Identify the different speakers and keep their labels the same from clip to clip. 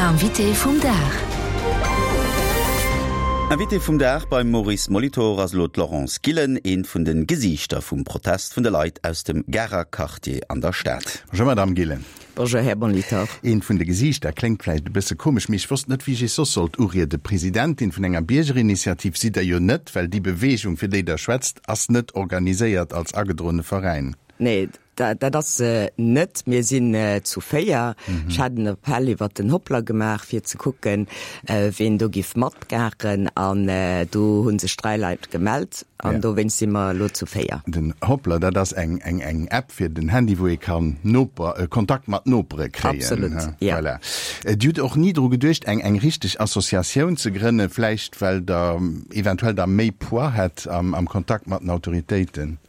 Speaker 1: Invité vum Dag.
Speaker 2: Invité vum Dag beim Maurice Molitor ass elo d'Laurence Gillen, eent vun de Gesiichter vum Protest vun de Leit aus dem Garer Quartier an der Stad.
Speaker 3: Bonjour Madame Gillen.
Speaker 4: Bonjour Här Molitor.
Speaker 3: Eent vun de Gesiichter kléngt vläicht e bësse komesch, mee ech wosst net, wéi ech Iech soss sollt urieden. Presidentin vun enger Biergerinitiativ sidd Der jo net, well déi Beweegung, fir déi Der schwätzt, ass net organiséiert als agedroene Veräin.
Speaker 4: Nee, dat ass se net. Mir sinn zu 4. Ech hat en Appell iwwert den Hoplr gemaach, fir ze kucken, ween do giff matmaachen. An do hu sech 3 Leit gemellt an dowéinst si mer elo zu 4.
Speaker 3: Den Hoplr, dat ass eng eng App fir den Handy, wou ee kann Noper, Kontakt mat Nopere kréien.
Speaker 4: Absolut, jo.
Speaker 3: Voilà. Dir hutt och ni dru geduecht, eng eng richteg Associatioun ze grënnen, vläicht well Der eventuell da méi Poids hätt am Kontakt mat den Autoritéiten?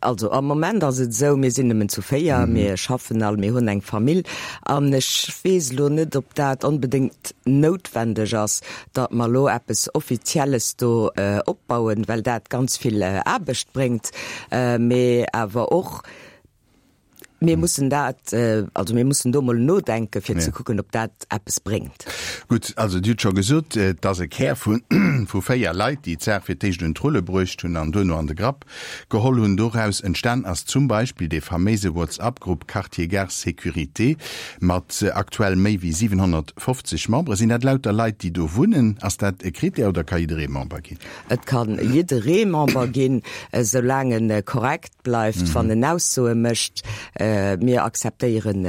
Speaker 4: Also am Moment ass et esou, mir sinn nëmmen zu 4, mir schaffen all, mir hunn eng Famill an ech weess elo net, ob dat onbedéngt noutwendeg ass, datt mer elo eppes Offizielles do opbauen, well dat ganz vill Aarbecht bréngt, mee awer och, Mir mussen dat, also mir mussen do mol nodenken, fir ze kucken, ob dat eppes bréngt.
Speaker 3: Gutt, also Dir hutt scho gesot, et ass e Kär vu vu 4 Leit, déi d'Saach fir d'éischt un d'Rulle bruecht hunn an duerno an de Grapp geholl hunn. Doraus entstan ass zum Beispill dee faméise Whatsapp-Grupp Quartier Gare Sécurité mat aktuell méi wéi 750 Membere. Sinn dat lauter Leit, déi do wunnen? Ass dat e Critère oder ka jidderee Member ginn?
Speaker 4: Et kann jidderee Member ginn, esoulaang en korrekt bleift, wann en Aussoe mécht. Mir akzeptéieren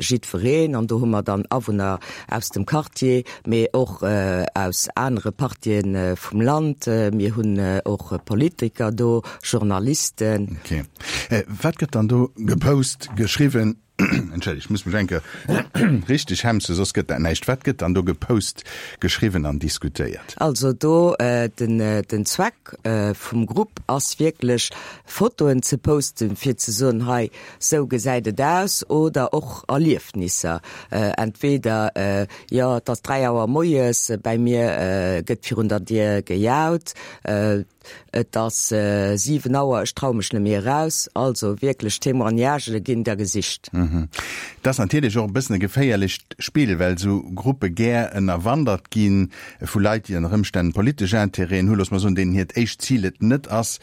Speaker 4: jiddwereen an do hu mer dann Awunner aus dem Quartier, mee och aus anere Partië vum Land. Mir hunn och Politiker do, Journalisten.
Speaker 3: Ok. Wat gëtt dann do gepost, geschriwwen? Entschëllegt, ech muss mech eng Kéier richteg hemsen, soss gëtt dat näischt. Wat gëtt dann do gepost, geschriwwen an diskutéiert?
Speaker 4: Also do, den, den Zweck vum Grupp ass wierklech Fotoen ze posten, fir ze soen, hei, sou gesäit et aus, oder och Erliefnisser. Entweder, jo, et ass 3 Auer moies, bäi mir gëtt virun der Dier gejaut, Et ass 7 Auer, ech traue mech net méi eraus. Also wierklech Témoignagë ginn der gesicht.
Speaker 3: Et ass natierlech och e bëssen e geféierlecht Spill, well esou Gruppe gär ënnerwandert gi vu Leit, déi ënner Ëmstänn politesch Intérêten hunn, loosse mer soen, deenen hiert éischt Zil et net ass,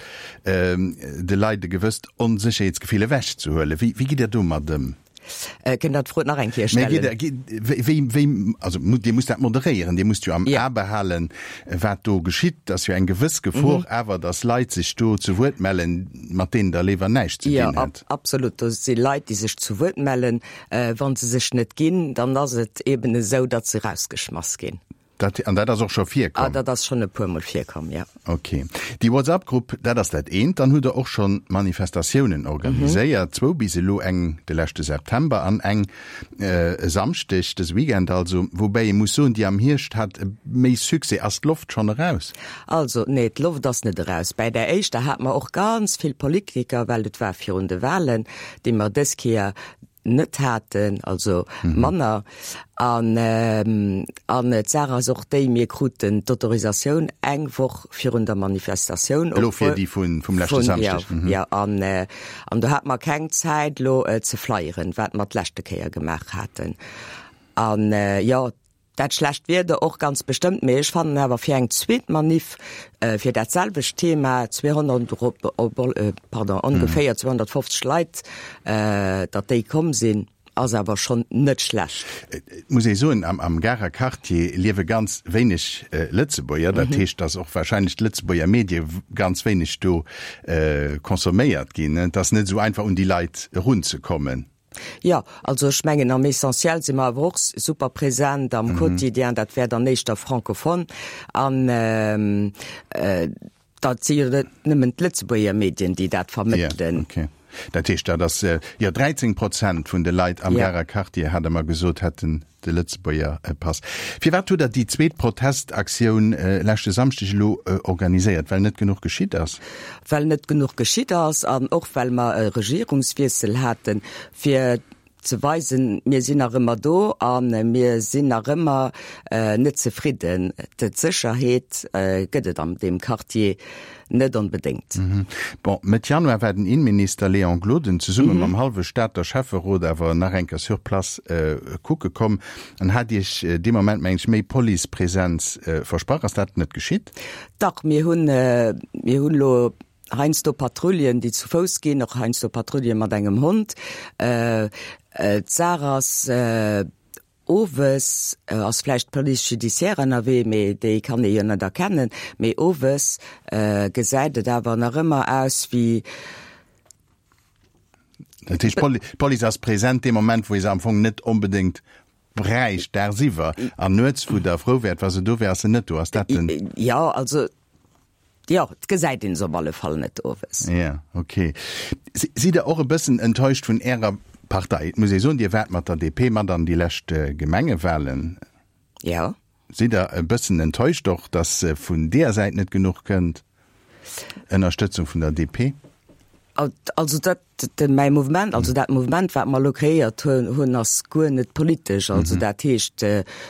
Speaker 3: de Leit e gewësst Onsécherheetsgefill ewechzehuelen. Wéi gitt Dir domat ëm?
Speaker 4: Kënnt Der d'Fro nach eng Kéier stellen?
Speaker 3: Wéi, wéi, also Dir musst dat moderéieren, Dir musst jo am A behalen, wat do geschitt. Et ass jo eng gewëss Gefor awer, datt Leit sech do zu Wuert mellen, mat deenen Der léiwer näischt ze dinn hätt.
Speaker 4: Jo, absolut. Do si Leit, déi sech zu Wuert mellen. Wa se sech net ginn, dann ass et eeben esou, datt se erausgeschmass ginn.
Speaker 3: Dat, an dat ass och scho virkomm?
Speaker 4: Ah, dat ass schonn e puermol virkomm, jo.
Speaker 3: Ok. Déi WhatsApp-Grupp, dat ass dat eent. Dann hutt Der och scho Manifestatiounen organiséiert, zwou bis elo, eng de leschte September an eng e Samschdeg, dëse Weekend also. Woubäi ee muss soen, déi am Hierscht hat méi Succès. Ass d'Loft schonn eraus?
Speaker 4: Also, nee, d'Loft ass net eraus. Bäi där éischter hate mer och ganz vill Politiker, well et war virun de Wahlen, déi mer dës Kéier net haten, also manner. An an d'Saach ass och déi, mir kruten d'Autorisatioun eng Woch virun der Manifestatioun.
Speaker 3: Elo fir déi vun vum leschte Samschdeg.
Speaker 4: Jo, jo. An an do hate mer keng Zäit elo ze flyeren, wat mer d'leschte Kéier gemaach haten. An jo, Dat schlecht Wieder och ganz bestëmmt, mee ech fannen awer fir eng zweet Maniff fir dat selwecht Thema 200, pardon, ongeféier 250 Leit, datt déi komm sinn, ass awer schonn net schlecht.
Speaker 3: Et muss ee soen, am Garer Quartier liewe ganz wéineg Lëtzebuerger. Dat heescht, datt och wahrscheinlech d'Lëtzebuerger Medie ganz wéineg do consomméiert ginn. Et ass net esou einfach un déi Leit erunzekommen.
Speaker 4: Jo, also ech mengen am Essentiel si mer awer och super present am Quotidien, dat wär dann éischter francophone an dat si jo net nëmmen d'Lëtzebuerger Medien, déi dat vermëttelen.
Speaker 3: Jo, okay. Dat heescht, dat ass, jo, 13 Prozent vun de Leit am Garer Quartier, hat Der mer gesot, hätten De Lëtzebuerger Pass. Firwat hutt Der déi zweet Protestaktioun leschte Samschdeg elo organiséiert? Well net genuch geschitt ass?
Speaker 4: Well net genuch geschitt ass an och well mer e Regierungswiessel haten, fir ze weisen, mir sinn nach ëmmer do a mir sinn nach ëmmer net zefridden. D'Sécherheet gëtt et an deem Quartier. Net onbedéngt.
Speaker 3: Bon, Mëtt Januar war den Innenminister Léon Gloden zesumme mam hallwe Stater Schäfferot awer nach eng Kéier sur place kucke komm an hat Iech dee Moment, mengen ech, méi Policepresenz versprach. Ass dat net geschitt?
Speaker 4: Dach, mir hunn, mir hunn elo heiansdo Patrouillen, déi zu Fouss ginn, och heiansdo Patrouille mat engem Hond. D'Saach ass, Owes ass vläicht d'Police judiciaire ënnerwee, mee déi kann ee jo net erkennen. Mee owes gesäit et awer nach ëmmer aus wéi.
Speaker 3: Dat heescht, d'Police ass present dee Moment, wou ee se am Fong net onbedéngt bräicht, dagsiwwer. An nuets, wou Der frou wäert, wa se do wär, ass se net do. Ass dat den.
Speaker 4: Jo, also. Jo, et gesäit een se op alle Fall net owes.
Speaker 3: Ja, ok. Sidd Der och e bëssen enttäuscht vun Ärer Partei? Et muss ee soen, Dir waart mat der DP mat an déi lescht Gemengewahlen.
Speaker 4: Jo.
Speaker 3: Sidd Der e bëssen enttäuscht och, datt vun deeër Säit net genuch kënnt Ënnerstëtzung vun der DP?
Speaker 4: Also dat, mäi Mouvement, also dat Mouvement, wat mer elo kreéiert hunn, ass guer net politesch. Also dat heescht,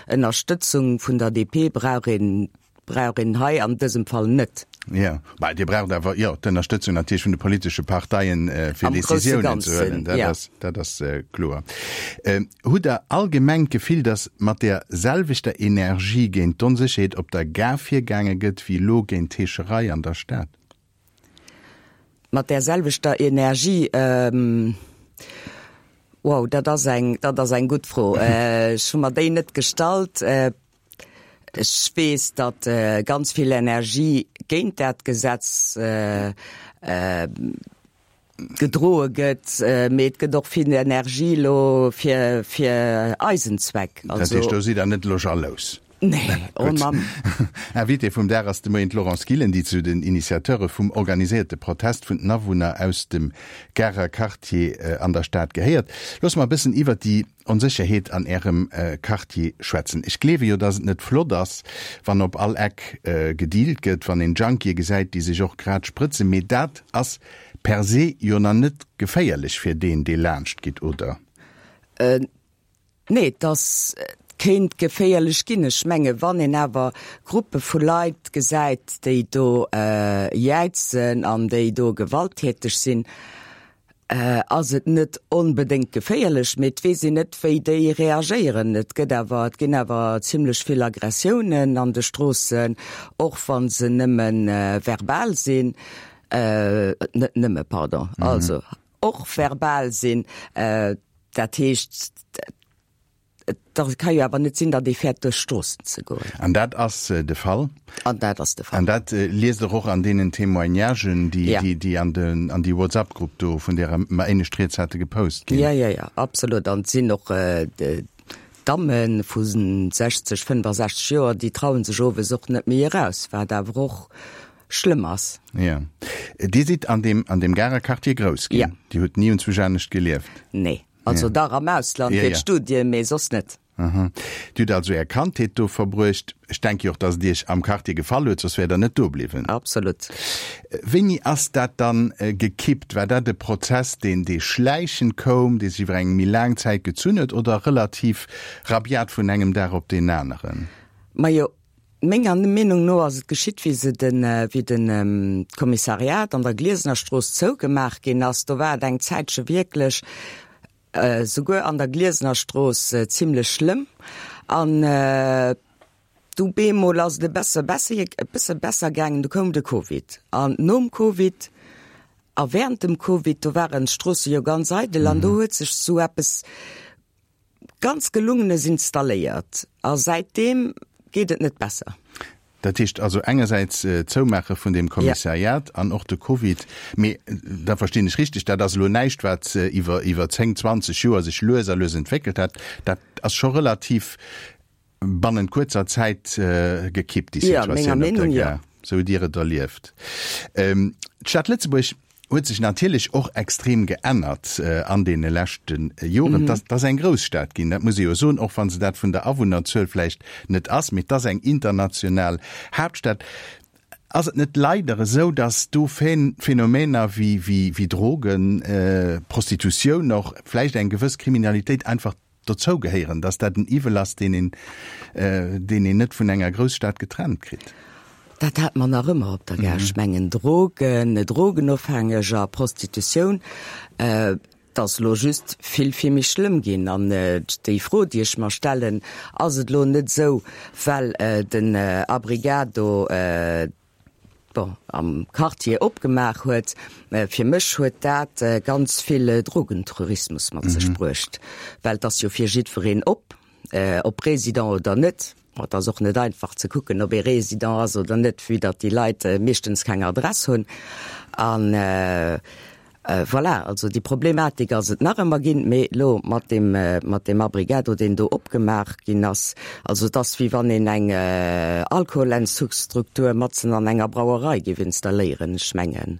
Speaker 4: Ënnerstëtzung vun der DP brauch een Brauch een hei an dësem Fall net.
Speaker 3: Jo, mä Dir braucht awer, jo, d'Ënnerstëtzung natierlech vun de politesche Parteien, fir Décisiounen ze huelen. Dat ass, dat ass kloer. Hutt Der allgemeng d'Gefill, datt mat där selwechter Energie géint d'Onsécherheet op der Gare virgaange gëtt, wéi elo géint d'Heescherei an der Stad?
Speaker 4: Mat där selwechter Energie? Wow, dat ass eng, dat ass eng gutt Fro. Ech hu mer déi net gestallt. Ech weess, datt ganz vill Energie géint dat Gesetz gedroe gëtt, mee et gëtt och vill Energie elo fir eisen Zweck.
Speaker 3: Dat heescht, do sidd Der net elo jalous?
Speaker 4: Nee, oh Mann.
Speaker 3: Invitée vum Dag ass de Moien d'Laurence Gillen, déi zu den Initiateure vum organiséierte Protest vun den Awunner aus dem Garer Quartier an der Stad gehéiert. Loosse mer e bëssen iwwert déi Onsécherheet an Ärem Quartier schwätzen. Ech gleewe jo, dass et net flott ass, wann op all Eck gedealt gëtt, wann een Junkië gesäit, déi sech och grad sprëtzen. Mee dat ass per se jo nach net geféierlech fir deen, dee laanscht geet, oder?
Speaker 4: Nee, et ass, et kéint geféierlech ginn. Ech menge wann een awer Gruppe vu Leit gesäit, déi do jäizen an déi do gewalttäteg sinn, ass et net onbedéngt geféierlech, mee et weess een net, wéi déi reagéieren. Et gëtt awer, et ginn awer zimlech vill Aggressiounen an de Stroossen, och wa se nëmme verbal sinn, net nëmme, pardon, also och verbal sinn. Dat heescht, Et ka jo awer net sinn, datt ee fäert duerch d'Stroossen ze goen.
Speaker 3: An dat ass de Fall.
Speaker 4: An dat ass de Fall.
Speaker 3: An dat liest Der och an deenen Témoignagen, déi, déi an den, an déi WhatsApp-Grupp do, vun där mer éinescht rieds hate, gepost ginn.
Speaker 4: Jo, jo, jo, absolut. An et sinn och Damme vu 60, 65 Joer, déi traue sech owes och net méi eraus, wat awer och schlëmm ass.
Speaker 3: Jo. Dir sidd an deem, an deem Garer Quartier grouss ginn. Jo. Dir hutt ni unzwousch anescht gelieft.
Speaker 4: Nee. Also dach am Ausland fir d'Studien, mee soss net.
Speaker 3: Aha. Dir hutt also Är Kandheet do verbruecht. Ech denke jo och, dass et Iech am Quartier gefall huet, soss wäert Der net do bliwwen.
Speaker 4: Absolut.
Speaker 3: Wéini ass dat dann gekippt? War dat e Prozess, deen, dee schläichend koum, dee sech iwwer eng méi laang Zäit gezunn huet oder relativ rabiat vun engem Dag op deen aneren?
Speaker 4: Majo, Menger Meenung no ass et geschitt, wéi se den, wéi den Kommissariat an der Gliesenerstrooss zougemaach ginn ass. Do war et eng Zäitche wierklech, souguer an der Gliesenerstrooss, zimlech schlëmm. An du bemol ass et e besse besser, e bësse besser gaangen. Du koum de Covid. An nom Covid a während dem Covid, do waren d'Stroosse jo ganz eidel an do huet sech sou eppes Ganz gelungenes installéiert a säitdeem geet et net besser.
Speaker 3: Dat heescht also engersäits d'Zoumaache vun deem Kommissariat an och de Covid. Mee da verstinn ech richteg, dat ass elo näischt, wat iwwer iwwer 10, 20 Joer sech lues a lues entwéckelt hat. Dat ass scho relativ bannent kuerzer Zäit gekippt, déi Situatioun op der Gare, sou hutt Dir et erlieft. D'Stad Lëtzebuerg huet sech natierlech och extrem geännert an deene leschte Joren. Et ass eng Grousstad ginn, dat muss ee jo soen, och wa se dat vun der Awunnerzuel vläicht net ass, mee et ass eng international Haaptstad. Ass et net leider esou, datt do Phänomener wéi Drogen, Prostitutioun och, vläicht eng gewëss Kriminalitéit einfach dozou gehéieren, dass dat en Iwwel ass, deen een, deen een net vun enger Grousstad getrennt kritt.
Speaker 4: Dat hat mer nach ëmmer op der Gare. Ech mengen Drogen, Drogenofhängeger, Prostitutioun, et ass elo just vill, vill méi schlëmm ginn. An déi Fro, déi ech mer stellen, Ass et elo net esou, well den Abrigado, bon, am Quartier opgemaach huet, fir mech huet dat ganz vill Drogentourismus mat sech bruecht, well et ass jo fir jiddwereen op, ob Résident oder net. Bon, et ass och net einfach ze kucken, ob ee Résident ass oder net, vue datt déi Leit meeschtens keng Adress hunn. An voilà, also déi Problematik ass et nach ëmmer ginn, mee elo mat deem, mat deem Abrigado, deen do opgemaach ginn ass, also et ass wéi wann een eng Alkoholentzugsstruktur matzen an enger Brauerei géif installéieren, ech mengen.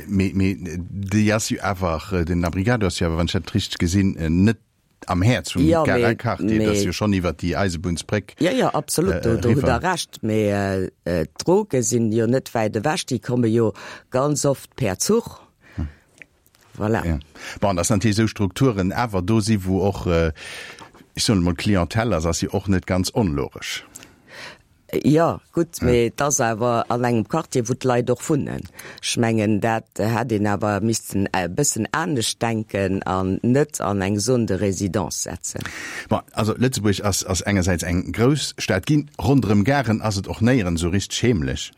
Speaker 3: Mee, mee déi ass jo awer, den Abrigado ass jo awer, wann ech dat richteg gesinn, net am Häerz vum
Speaker 4: Ja,
Speaker 3: Garer
Speaker 4: mee,
Speaker 3: Quartier, dat ass
Speaker 4: mee
Speaker 3: jo schonn iwwert déi Eisebunnsbréck
Speaker 4: Ja, ja, absolut, do, do hutt
Speaker 3: eriwwer.
Speaker 4: Der Recht. Mee d'Droge sinn jo net wäit ewech, déi komme jo ganz oft per Zuch. Voilà.
Speaker 3: Ja. Bon, dass natierlech esou Strukturen awer do si wou och, ech soen emol, Clientèle ass, ass jo och net ganz onlogesch.
Speaker 4: Jo, gutt, mee et ass awer an engem Quartier, wou d'Leit och wunnen. Ech mengen, dat hätt een awer missten e bëssen anescht denken an net an eng Zone de résidence setzen.
Speaker 3: Bon, also Lëtzebuerg ass, ass engersäits eng grouss Stad ginn, ronderëm Garen ass et och néierens esou richteg heemlech.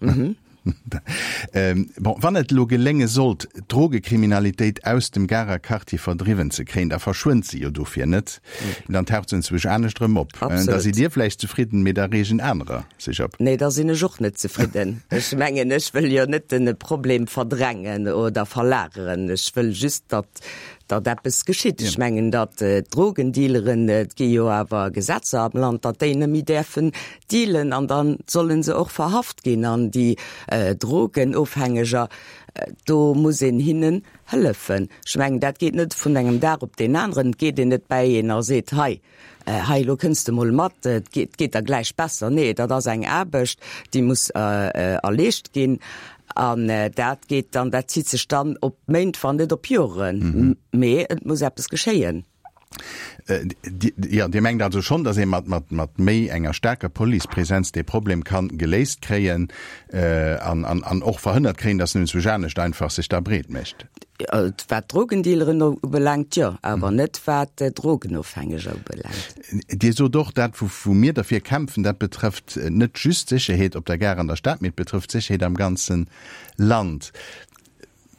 Speaker 3: Bon, wann et elo gelénge sollt, d'Drogekriminalitéit aus dem Garer Quartier verdriwwen ze kréien, da verschwënnt se jo dofir net, dann taucht se enzwousch anescht erëm op. Da sidd Dir vläicht zefridden, mee da reegen anerer sech op.
Speaker 4: Nee, da sinn ech och net zefridden. Ech mengen, ech wëll jo net de Problem verdrängen oder verlageren. Ech wëll just, datt datt eppes geschitt. Ech mengen, datt d'Drogendealeren, et gi jo awer Gesetzer am Land, datt déi net méi däerfen dealen an da solle se och verhaft ginn. An déi Drogenofhängeger, do muss een hinnen hëllefen. Ech mengen, dat geet net vun engem Dag op deen aneren. Et geet een net bäi een a seet, hei, hei elo kënns de mol mat, et geet, geet der gläich besser. Nee, dat ass eng Aarbecht, déi muss erleescht ginn. An dat geet dann, dat zitt sech dann op Méint, wann net op Joren. Mee et muss eppes geschéien.
Speaker 3: Jo, Dir mengt also schonn, datt ee mat, mat, mat méi enger staarker Policepresenz dee Problem kann geléist kréien an, an, an och verhënnert kréien, datt en enzwousch anescht einfach sech da breet mécht?
Speaker 4: Wat d'Drogendealeren ubelaangt, jo, awer net wat d'Drogenofhängeger ubelaangt.
Speaker 3: Dir sot och, dat wou mir derfir kämpfen, dat betrëfft net just d'Sécherheet op der Gare an der Stad, mee et betrëfft d'Sécherheet am ganze Land.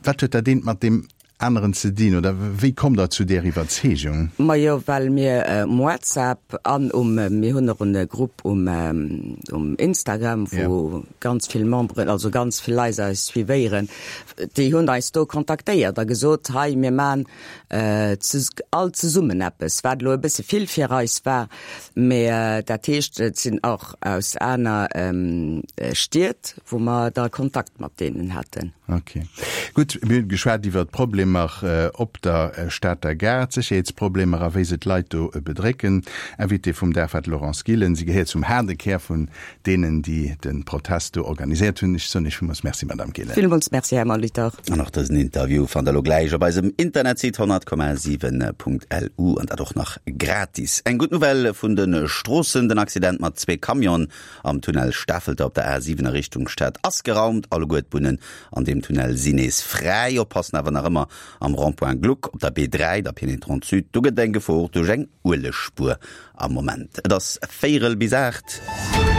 Speaker 3: Wat huet dat eent mat deem aneren ze dinn oder wéi kommt Der zu där Iwwerzeegung?
Speaker 4: Majo, well mir um WhatsApp an um, mir hunn och e Grupp um um Instagram, wou ganz vill Memberen, also ganz vill Leit eis suivéieren, déi hunn eis do kontaktéiert a gesot, hei mir man all zesummen eppes, wat elo e bësse vill fir eis war, mä dat heescht, et sinn och aus aner Stied, wou mer da Kontakt mat deenen haten.
Speaker 3: Ok. Gutt, mir hunn geschwat iwwert d'Problemer op der Stater Gare, d'Sécherheetsproblemer a wéi se d'Leit do bedrécken. Invitée vum Dag war d'Laurence Gillen. Si gehéiert zum haarde Kär vun deenen, déi de Protest do organiséiert hunn. Ech soen Iech villmools Merci, Madame Gillen.
Speaker 4: Villmools Merci, Här Molitor.
Speaker 2: An och dësen Interview fannt der elo gläich op eisem Internetsite 100,7.lu an dat och nach gratis. Eng gutt Nouvelle vun de Stroossen, Den Accident mat zwee Camionen am Tunnel Stafelter op der A7 a Richtung Stad ass geraumt. Alleguer d'Bunnen an deem Tunnel sinn nees fräi. Oppassen awer nach ëmmer am Rond-point Gluck op der B3, der Pénétrante Sud, do gëtt et eng Gefor duerch eng Uelegspuer am Moment. Et ass véierel bis 8.